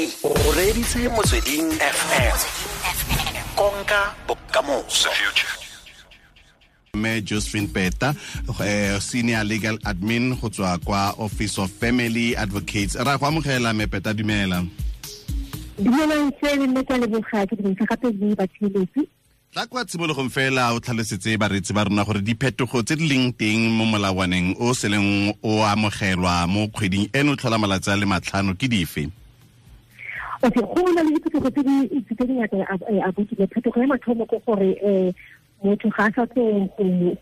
O reditse Motsweding FM, konka bokamoso. Mme Josephine Peta, senior legal admin go tswa kwa Office of Family Advocates. Ra go amogela, mme Peta, dumela. Dumelang sele, mme kwa leboga ke dumedisa gape le batheeletsi. Tla kwa tshimologong fela o tlhalosetse bareetsi ba rona gore diphetogo tse di leng teng mo molawaneng o seleng o amogelwa mo kgweding eno tlhola malatsi a le 5 ke dife? Okay, go na le diphetogo tse di ngata a botile. Phetogo ya mathomo ke gore motho ga a sa tlo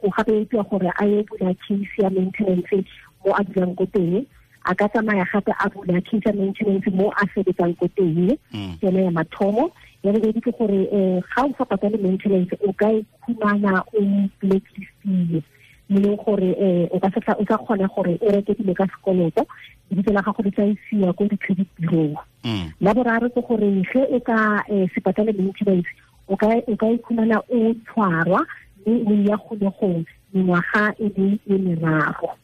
go gape gore a ye bula case ya maintenance mo a dulang ko teng, a ka tsamaya gape a bula case ya maintenance mo a sebetsang ko teng. Ke yone ya mathomo. Ya bobedi ke gore ga o sa patale maintenance o ka ikhumana o blacklistile, mo leng gore o ka o sa kgona gore o reke dilo ka sekoloto, lebitso la gago le tla isiwa ko di-credit bureau. La boraro ke gore ge o ka se patale maintenance o ka ikhumana o tshwarwa mme o ya kgolegong mengwaga e le e meraro.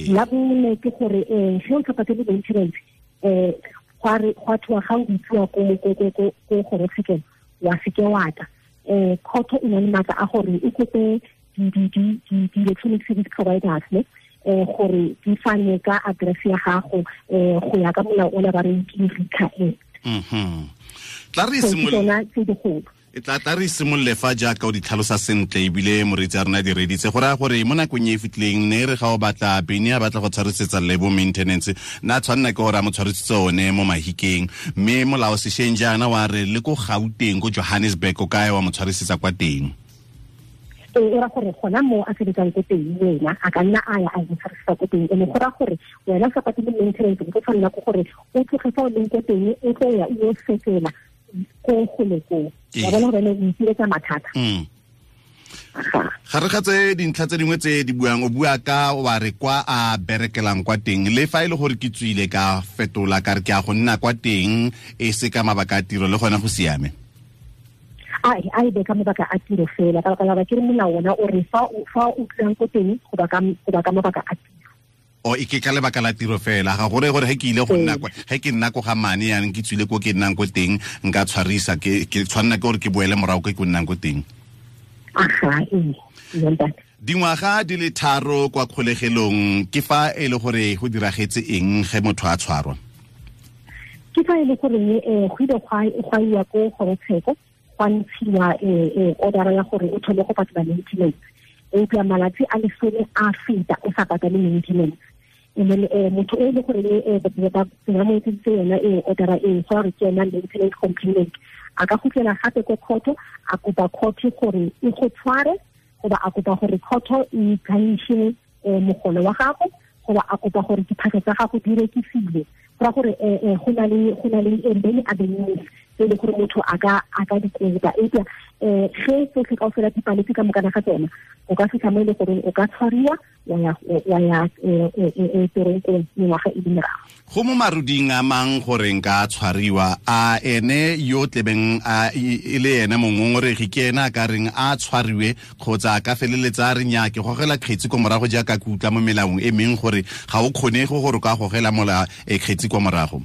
La bone ke gore ge o sa patale maintenance gwa thoa ga o bitsiwa ko kgorotshekelo wa seke wa tla, court e na le maatla a gore e kope di-electronic service providers ne gore di fane ka address ya gago go ya ka molao o la ba reng ke RICA Act. Tla re tla re simolole fa jaaka o di tlhalosa sentle ebile moreetsi a rona di reditse, go raya gore mo nakong e e fetileng ne re ga o batla bene a batla go tshwarisetsa Lebo maintenance, na tshwanela ke gore a mo tshwarisitse one mo Mahikeng, mme molao sešweng jaana wa re le ko Gauteng, ko Johannesburg, o kae wa mo tshwarisetsa kwa teng. E ra gore gona mo a sebetsang ko teng wena a ka nna a ya a tshwarisa ko teng, ene go ra gore wena o sa patele maintenance o tshwanela ke gore o tloge fa o leng ko teng o tlo ya o yo fetela ko gole koo, wa bona gore o ipiletsa mathata. Ga re ga tse dintlha tse dingwe tse di buang, o bua ka wa re kwa a berekelang kwa teng, le fa e le gore ke tswile ka fetola ka re ke a go nna kwa teng e se ka mabaka a tiro, le gona go siame? A e be ka mabaka a tiro fela, ka baka la ke re molao ona o re fa o tlang ko teng go ba ka mabaka a tiro. O e ke ka lebaka la tiro fela, ga gore gore ge ke ile go nna kwa, ge ke nna ko ga mane yanong ke tswile ko ke nnang ko teng, nka tshwarisa ke tshwanela ke gore ke boele morago ke ko nnang ko teng. Aha, ee. Dingwaga di le 3 kwa kgolegelong ke fa e le gore go diragetse eng ge motho a tshwarwa? Ke fa e le gore go ile gwa iwa ko kgorotsheko, gwa ntshiwa order ya gore o thome go patela maintenance, eupša malatsi a 10 a feta o sa patale maintenance. And then motho e le gore ba mo etseditse yona e order e go re ke yona maintenance complaint, a ka gutlela gape ko court, a kopa court gore e go tshware, goba a kopa gore court e garnishe mogolo wa gago, goba a kopa gore diphahlo tsa gago di rekisiwe. Go ra gore go na le many avenues tse e le gore motho a ka di kopa, eupša ge tsotlhe kaofela di paletse ka mokana ga tsona, o ka fitlha mo e le gore o ka tshwariwa wa ya teronkong mengwaga e le meraro. Go mo maruding a mang gore nka tshwariwa, a ene yo tlebeng a e le ene mongongoregi ke ene a ka reng a tshwariwe, kgotsa a ka feleletsa a re nnyaa ke gogela kgetsi ko morago jaaka ke utlwa mo melaong e meng gore ga o kgonege gore o ka gogela mola kgetsi kwa morago?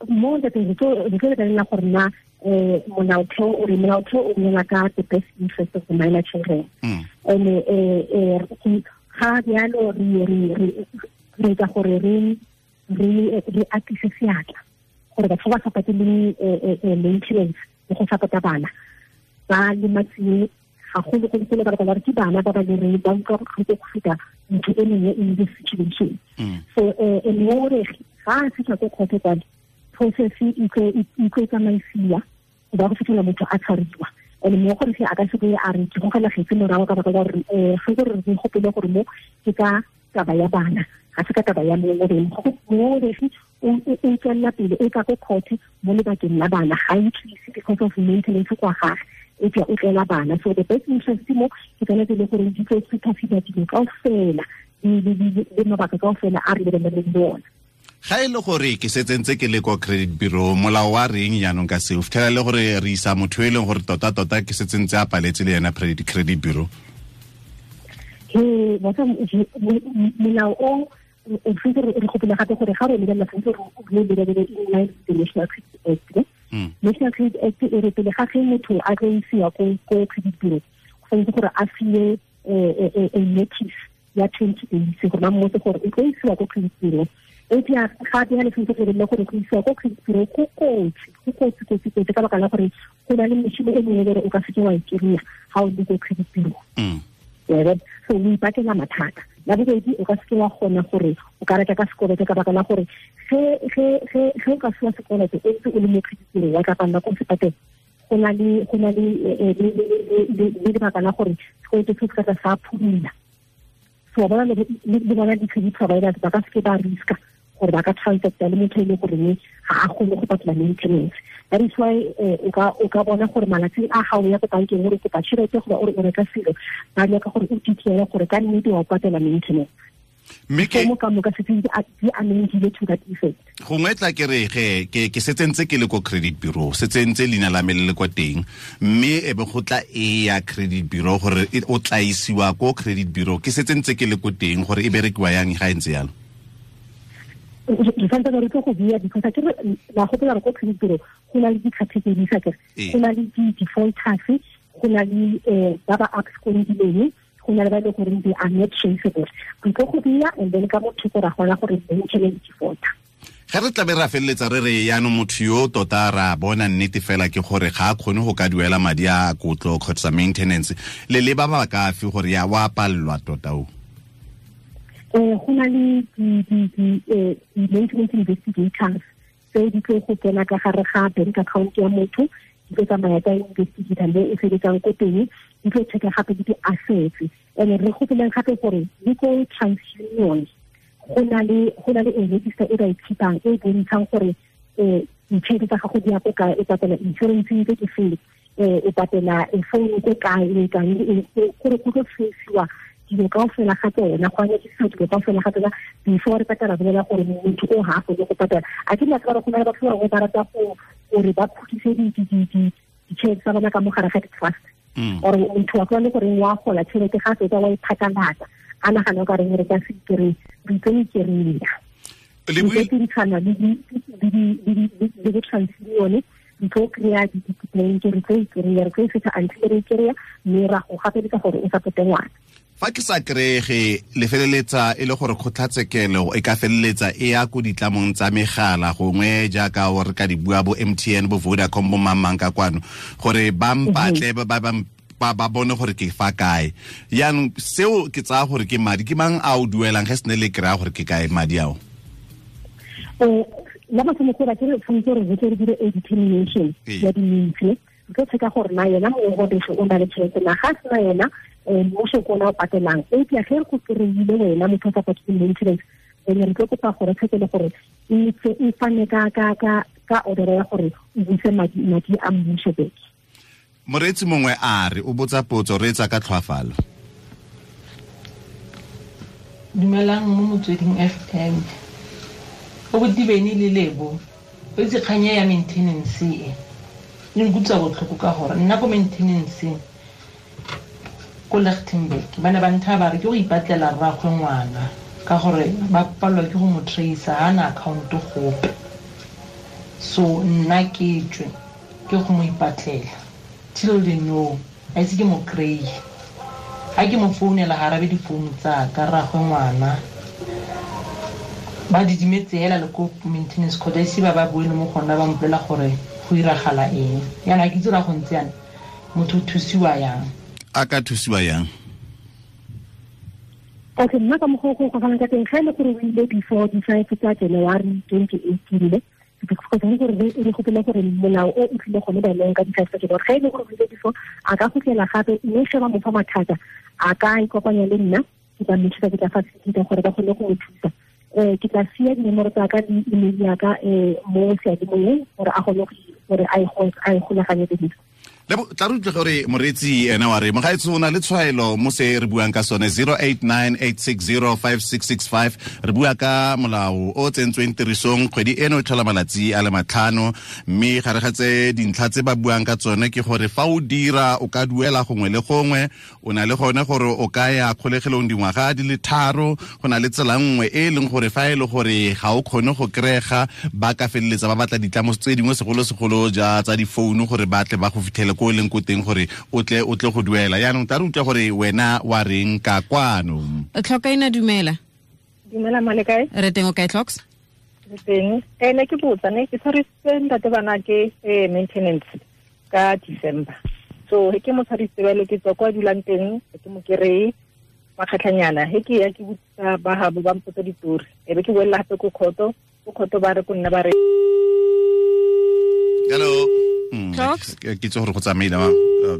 Mo re tlo lebelela gore na molaotheo o re molaotheo o bolela ka the best interest of the minor children. And ga bjalo re etsa gore re atise seatla gore batho ba sa pateleng maintenance le go support-a bana ba lematsiwe gagolo-golo-golo, ka baka la gore ke bana ba ba lereng ba utlwa botlhoko go feta motho e mongwe in this situation. So mongongoregi ga a fitlha ko kgotho kwale, process e tlo tsamaisiwa go ba go fitlhela motho a tshwariwa. And mongongoregi a ka se boe a re ke gogela kgetsi morago, ka baka la gore ge gore re gopole gore mo ke ka taba ya bana, ga se ka taba ya mongongoregi. Mongongoregi o tswelela pele o tla ko court mo lebakeng la bana, ga e tlise because of maintenance kwa gage, eupša o tlela bana. So the best interest mo ke tsone tse e le gore di tlo supersede dilo kaofela le mabaka kaofela a re lebeleleng le ona. Ga e le gore ke setse ntse ke le kwa credit bureau, molao wa reng jaanong ka seo? Fitlhela le gore re isa motho e leng gore tota-tota ke setse ntse a paletse le yena credit bureau. Molao o tshwanetse re gopole gape gore ga re lebelela tshwanetse re lebelele in line with the National Credit Act. National Credit Act e re pele ga ge motho a tlo isiwa ko credit bureau, go tshwanetse gore a fiwe a notice ya 20 days gore ba mmotse gore o tlo isiwa ko credit bureau. Eupša ga bjale tshwanetse go lebelele gore go isiwa ko credit bureau go kotsi ka baka la gore go na le mešomo e mengwe gore o ka seke wa e kry-a ga o le ko credit bureau. So o ipakela mathata. La bobedi, o ka seke wa kgona gore o ka reka ka sekoloto ka baka la gore ge o ka fiwa sekoloto o ntse o le mo credit bureau wa tla palela ko se patela. Go na le lebaka la gore sekoloto se se ka sa phumula. So ba le bona di-credit providers ba ka seke ba riska gore ba ka transacta le motho e le goreng ga a kgone go patela maintenance. That is why o ka bona gore malatsing a gago ya ko bankeng gore kopa tšhelete goba o re o reka selo, ba nyaka gore o detaile gore ka nnete wa patela maintenance. Mme ke mo ka moka se di amendile to that effect. Gongwe tla ke re ge ke setsentse ke le ko credit bureau, setsentse leina la me le le kwa teng, mme e be go tla e ya credit bureau gore o tla isiwa ko credit bureau, ke setsentse ke le ko teng gore e berekiwa yang ga e ntse yalo. Re santse re tlo go bua because ke re la gopola re ko credit bureau go na le di-categories a kere, go na le di-defaulters, go na le ba ba abscondileng, go na le ba e leng gore they are not traceable. Re tlo go bua and then ka motho go ra gona gore maintenance defaulter. Ge re tlabe ra feleletsa re re yaanong motho yo tota ra bona nnete fela ke gore ga a kgone go ka duela madi a kotlo kgotsa maintenance, le leba ba ka fe gore ya wa palelwa tota o? Go na le di-maintenance investigators tse di tlo go tsena ka gare ga bank account ya motho, di tlo tsamaya tsa investigator le e sebetsang ko teng, di tlo checka gape le di-assets. And re gopoleng gape gore le ko TransUnion go na le a register e ba e keepang e bontshang gore ditšhelete tsa gago di ya ko kae, o patela insurance tse ke feng, o patela phone ko kae, e kae, gore go tlo traciwa dilo kaofela ga tsona, go anyakisiwa dilo kaofela ga tsona before re patela bolela gore motho o ga a kgone go patela. A ke nna gore go na le batho ba bangwe ba rata gore ba khutise ditšhelete tsa bona ka mo gare ga di-trust, or motho wa kgone gore wa gola tšhelete ga fetsa wa iphatlalatsa a nagana o ka reng re ka se kry, re tlo ikry-a. Re dirisana le bo-TransUnion, re tlo kry-a di-complaint, re tlo ikry-a, re tlo e fetsa until re ikry-a, mme ra go gapeletsa gore o supporte ngwana. Fa ke sa kry-ge le feleletsa e le gore kgotlatshekelo e ka feleletsa e ya ko ditlamong tsa megala gongwe jaaka o re ka di bua bo MTN bo Vodacom bo mang ka kwano gore ba mpatle ba bone gore ke fa kae. Yaanong seo ke tsaya gore ke madi ke mang a o duelang ge se ne le kry-a gore ke kae madi ao? La mathomo gore ke re tshwanetse gore re tle re dire a determination ya di-means, re tlo checka gore na yena mongongoregi o na le tšhelete na, ga sena yena mmuso ke ona o patelang. Eupša ge re go kry-ile wena motho o sa patele maintenance, then re tlo kopa gore tshekele gore e fane ka order ya gore o buse madi a mmuso back. Moreetsi mongwe a re o botsa potso, reetsa ka tlhoafalo. Dumelang mo Motsweding FM. O botibene le Lebo, o itse kgang ya maintenance e e nkutlwisa botlhoko ka gore nna ko maintenance ko Lichtenburg ba ne ba ntha ba re ke go ipatlela rraagwe ngwana ka gore ba palelwa ke go mo tracer, ga na account gope. So nna ke tswe ke go mo ipatlela till they know a itse ke mo kry-e. Ga ke mo founela ga arabe difounu tsa ka rraagwe ngwana, ba didimetse hela le ko maintenance court, a ise ba ba buele mo gona ba mpolela gore go iragala eng. Yana ke itse gore go ntse yana motho o thusiwa yang. A ka thusiwa yang? Okay, nna ka mokgwa o go gogang ka teng, ga e le gore o ile before di-5 tsa January 2018, because gore re gopole gore molao o o tlile gone baeleng ka di-5 tsa January, ga e le gore o ile before a ka gotlela gape, mme ge ba mo fa mathata a ka ikopanya le nna, ke tla mo thusa, ke tla facilita gore ba kgone go mo thusa. Ke tla sia dinomoro tsa ka le email ya ka mo seyalemoyeng gore a kgone gore a e golaganye le dilo. Le tla re utlwe gore moreetsi ene wa re mogaetso o na le tshwaelo mo se re buang ka sone 0898605665. Re bua ka molao o tsentsweng tirisong kgwedi eno e tlhola malatsi a le 5, mme gare ga tse dintlha tse ba buang ka tsone ke gore fa o dira o ka duela gongwe le gongwe, o na le gone gore o ka ya kgolegelong dingwaga di le 3, go na le tsela nngwe e leng gore fa e le gore ga o kgone go kry-ega ba ka feleletsa ba batla ditlamo tse dingwe segolo-segolo ja tsa difounu gore ba tle ba go fitlhele ko e leng ko teng gore o tle go duela. Yaanong tla re utlwa gore wena wa reng ka kwano. Tlhokaina, dumela. Dumela male kae? Re teng, o kae Tlhoks? Re teng. Ne ke botsa ne ke tshwarisitse ntate bana ke maintenance ka December. So he ke mo tshwarisitse bale ke tswa kwa dulang teng, ke mo kereye makgatlhanyana. He ke ya ke botsa ba habo ba mpotsa ditori. E be ke boela hape ko khoto, ko khoto ba re ko nna ba re Hello. Ke itse gore go tsamaile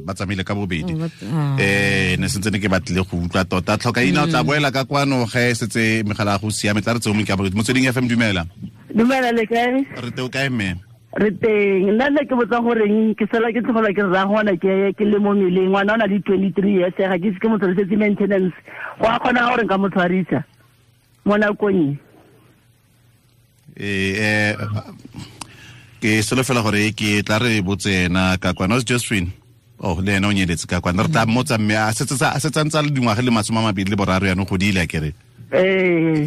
ba tsamaile ka bobedi. Ne sentse ne ke batlile go utlwa tota. Tlhokaina o tla boela ka kwano ge setse megala go siame, tla re tse o mong ke a Motsweding FM. Dumela. Dumela le kae? Re teng, o kae mme? Re teng. Nna ne ke botsa goreng ke sala ke tlogelwa ke rra ngwana ke le mo mmeleng, ngwana o na le 23 years, ga ke ise ke mo tshwarisetse maintenance. Go a kgona gore nka mo tshwarisa mo nakong e? Ke solofela gore ke tla re botse ena ka kwana Josephine. Oh, le ena o nyeletse ka kwana. Re tla mmotsa mme a setse a ntse a le dingwaga le 23 yanong godile a kere.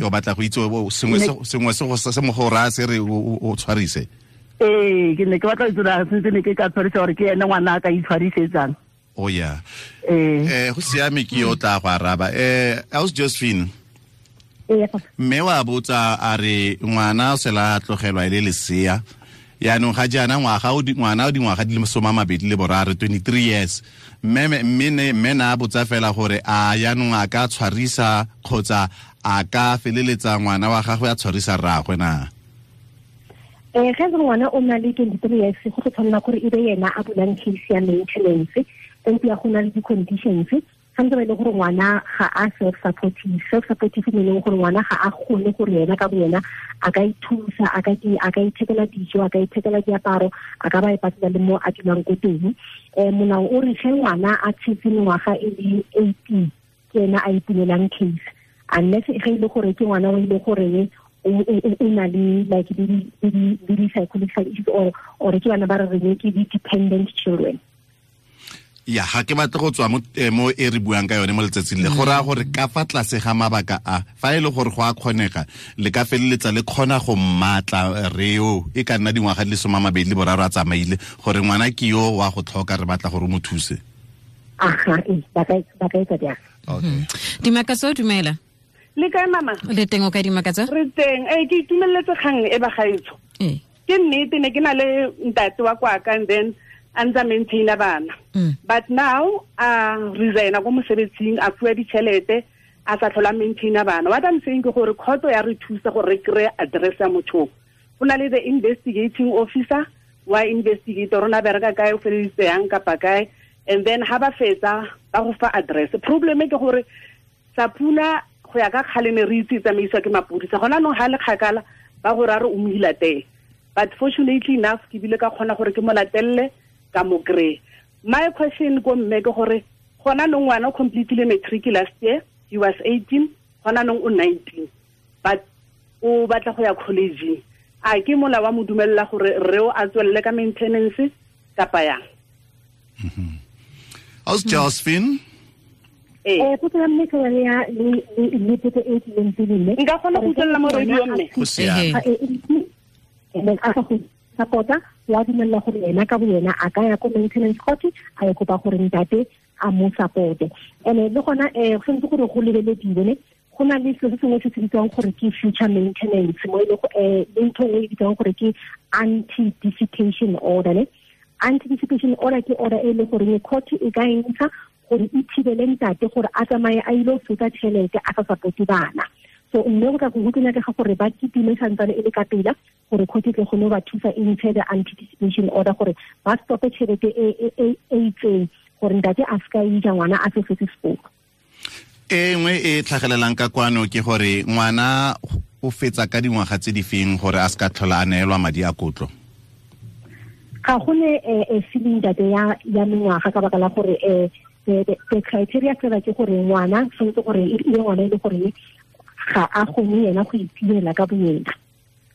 O batla go itse sengwe se mo go raya se re o tshwarise. Ke ne ke batla go itse gore sentse ne ke ka tshwarisa gore ke ene ngwana a ka itshwarisetsang. Oh yeah. Go siame, ke yo tla go araba. Aus Josephine. Mme wa botsa a re ngwana o sela tlogelwa e le lesea. Yaanong ga jaana ngwana o dingwaga di le 23, 23 years. Mme na botsa fela gore a yaanong a ka tshwarisa kgotsa a ka feleletsa ngwana wa gagwe a tshwarisa rraagwe na? Ge ngwana o na le 23 years, go tlo tshwanela gore e be yena a bulang case ya maintenance, empa go na le di-conditions. Gantse ba e le gore ngwana ga a self-supportive. Self-supportive meaning gore ngwana ga a kgone gore yena ka boyena a ka ithusa, a ka ithekela dijo, a ka ithekela diaparo, a ka ba e patela le mo a dulang ko teng. Molao o re ge ngwana a tshetse mengwaga e le 18 ke ena a ipulelang case, unless ge e le gore ke ngwana o e le goreng o na le like di psychological issues or ke bana ba re reng ke di-dependent children. Ya, ga ke batle go tswa mo e re buang ka yone mo letsatsing le. Go raya gore ka fa tlase ga mabaka a, fa e le gore go a kgonega, le ka feleletsa le kgona go mmatla reo e ka nna dingwaga di le 23 a tsamaile, gore ngwana ke yo wa go tlhoka, re batla gore o mo thuse. Aha, ba ka etsa jang. Okay. Dimakatso, dumela. Le kae mama? Le teng, o kae Dimakatso? Re teng. Ke itumeletse kgang e ba gaetsho. Ke nnete ne ke na le ntate wa kwaka and then a ntse a maintaina bana. But now a resigna ko mosebetsing, a fuwa ditšhelete, a sa tlhola maintaina bana. What I'm saying ke gore khotso ya re thusa gore re kry-e address ya motho. Go na le the investigating officer wa investigate rona bereka kae, o feleditse yang kapa kae, and then ha ba fetsa ba go fa address. Problem ke gore Sapuna go ya ka kgale ne re itse tsamaiswa ke mapodisa, gona nong ha le kgakala ba go ra re o mo ilatele. But fortunately enough ke bile ka kgona gore ke mo latelle ka mo kry. My question ko mme ke gore gona nong ngwana o completely matric last year, he was 18, gona nong o 19, but o batla go ya college. A ke mola wa mo dumella gore re o a tswelle ka maintenance kapa yang? Aus Josephine. Potso ya mme ke yone ya le potso e tlileng pele mme. Nka kgona go utlwelela mo radio mme. Go siame. A sa go support-a, wa dumella gore yena ka boyena a ka ya ko maintenance court a ye kopa gore ntate a mo support-e. And le gona go tshwanetse gore go lebelediwe ne, go na le selo se sengwe se se bitswang gore ke future maintenance, mo e le le ntho nngwe e bitswang gore ke anti-dissipation order ne. Anti-dissipation order ke order e le gore court e ka e ntsha gore e thibele ntate gore a tsamaye a ile go fetsa tšhelete a sa support-e bana. So mme go tla go nyakega gore ba kitime santsane e le ka pela gore court e tle kgone go ba thusa e ntshe the anti-dissipation order gore ba stope tšhelete e itseng gore ntate a se ka ija ngwana a se fetse sekolo. E nngwe e tlhagelelang ka kwano ke gore ngwana o fetsa ka dingwaga tse di feng gore a se ka tlhola a neelwa madi a kotlo? Ga go ne ceiling date ya mengwaga ka baka la gore the criteria fela ke gore ngwana tshwanetse gore e ngwana e le gore ga a kgone yena go itirela ka boyena.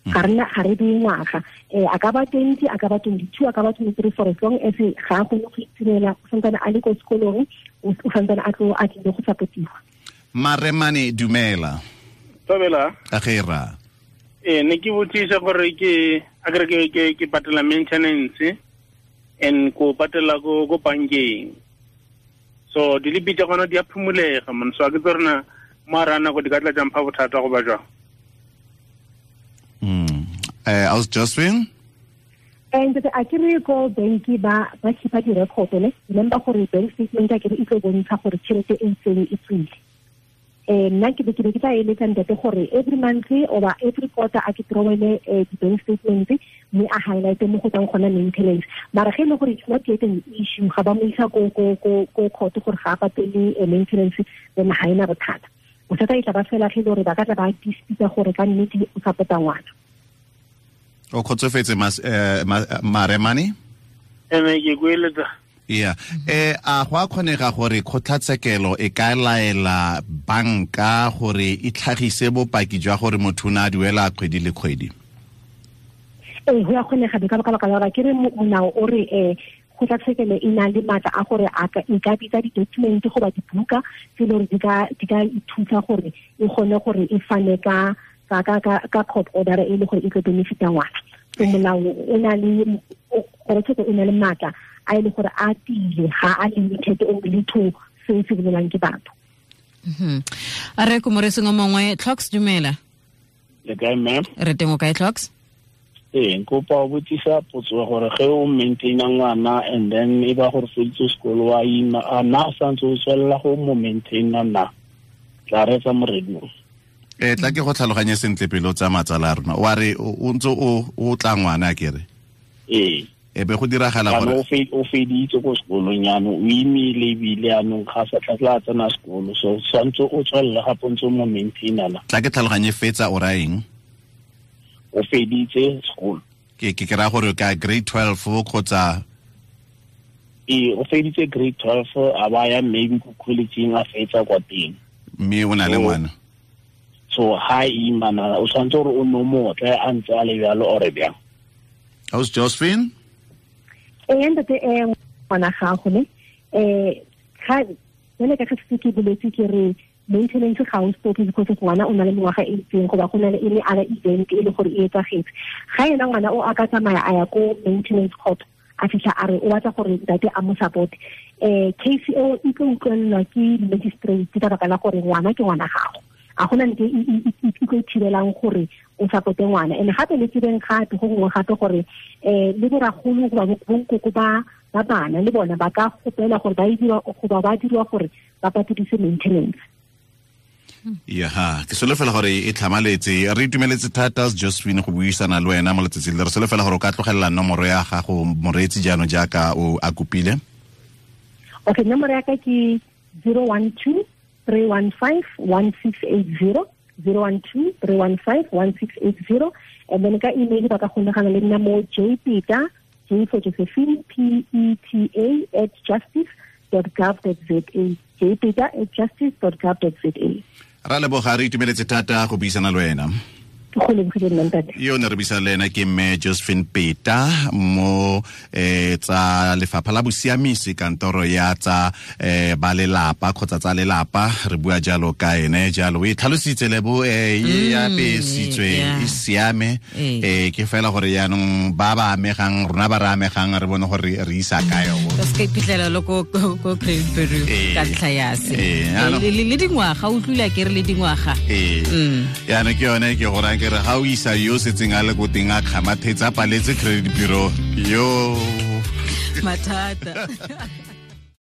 Ga re beye ngwaga, a ka ba 20, a ka ba 22, a ka ba 23, for as long as ga a kgone go itirela, o santsane a le ko sekolong, o santsane a tlo a tlile go supportiwa. Maremane, dumela. Tobela. Agera. Ne ke botsisa gore ke akere ke patela maintenance and ko patela ko bankeng. So dilipi tsa gona di a phumulega man, so a ke tsona mara nako di ka tla jang pha bothata go ba jwang. Aus Josephine? And a ke re ko banki ba keepa di-record ne, remember gore bank statement a ke re e tlo bontsha gore tšhelete e itseng e tswile. Nna ke be ke tla eletsa ntate gore every month or every quarter a ke throwele di-bank statement mme a highlight mo go tswang gona maintenance. Mara ge e le gore it's not yet an issue, ga ba mo isa ko court gore ga a patele maintenance, then ga ena bothata. Bothata e tla ba fela ge e le gore ba ka tla ba dispute gore ka nnete o support-a ngwana. O kgotsofetse Maremane? Ene ke kueletsa. Yeah. A go a kgonega gore kgotlatshekelo e ka laela banka gore e tlhagise bopaki jwa gore motho o ne a duela kgwedi le kgwedi? Ee, go a kgonega ka baka la gore ke re molao o re kgotlatshekelo e na le maatla a gore e ka bitsa di-document goba dibuka tse e le gore di ka ithusa gore e kgone gore e fane ka court order e le gore e tlo benefita ngwana. So molao o na le kgotlatshekelo e na le maatla a e le gore a tiile, ga a limited only to se se bolelang ke batho. A re ko moreseng o mongwe. Clocks, dumela. Le kae ma'am? Re teng, o kae Clocks? Ee, nkopa o botsisa potso gore ge o maintaina ngwana and then e ba gore feditse sekolo wa ima, a na o santse o tswelela go mo maintaina na? Tla reetsa moredimo. Tla ke go tlhaloganye sentle pele o tsaya matsala a rona. Wa re o ntse o tla ngwana a kere? Ee. E be go diragala gore o feditse ko sekolong jaanong, o imile ebile jaanong ga sa tla tsena sekolo, so tshwanetse o tswelele gape o ntse o mo maintaina na? Tla ke tlhaloganye fetsa o raya eng? O feditse sekolo. Ke raya gore ka grade 12 kgotsa? Ee, o feditse grade 12, a ba ya maybe ko college-ing a fetsa kwa teng. Mme o na le ngwana? So ha imana o tshwanetse gore o no motle a ntse a le bjalo ore bjang? Aus Josephine? Ee, ntate, ngwana gago ne, ga jale ka ge ke boletse ke re maintenance ga o stop because ngwana o na le mengwaga e itseng goba go na le any other event e le gore e etsagetse. Ga ena ngwana o a ka tsamaya a ya ko maintenance court, a fitlha a re o batla gore ntate a mo support, case eo e tlo utlwelelwa ke magistrate ka baka la gore ngwana ke ngwana gago. A gona nte e tlo thibelang gore o supporte ngwana. And gape le tsebeng gape go gongwe gape gore le boragolo goba bonkoko ba bana le bona ba ka gopela gore ba diriwa goba ba diriwa gore ba patedise maintenance. Ya, ke solofela gore e tlhamaletse. Re itumeletse thata Josephine go buisana le wena mo letsatsing le. Re solofela gore o ka tlogelela nomoro ya gago moreetsi jaanong jaaka o a kopile. Okay, nomoro ya ka ke 012 315 1680, 012 315 1680. And then ka email ba ka kgonagana le nna mo jpeta, J for Josephine, P-E-T-A @justice.gov.za, jpeta @justice.gov.za. Ra leboga, re itumeletse thata go buisana le wena. Yo ne re buisana le ena ke mme Josephine Peta mo tsa lefapha la bosiamisi, kantoro ya tsa ba lelapa kgotsa tsa lelapa. Re bua jalo ka ene jalo, o e tlhalositse lebo e apesitswe e siame. Ke fela gore jaanong ba ba amegang, rona ba re amegang, re bone gore re isa kae. O se ka iphitlhela le ko credit bureau ka ntlha ya se le dingwaga, o utlwile ke re le dingwaga. Jaanong ke yone ke gore ke re ga o isa yo setseng a le ko teng a kgamathetsa paletse credit bureau yo mathata.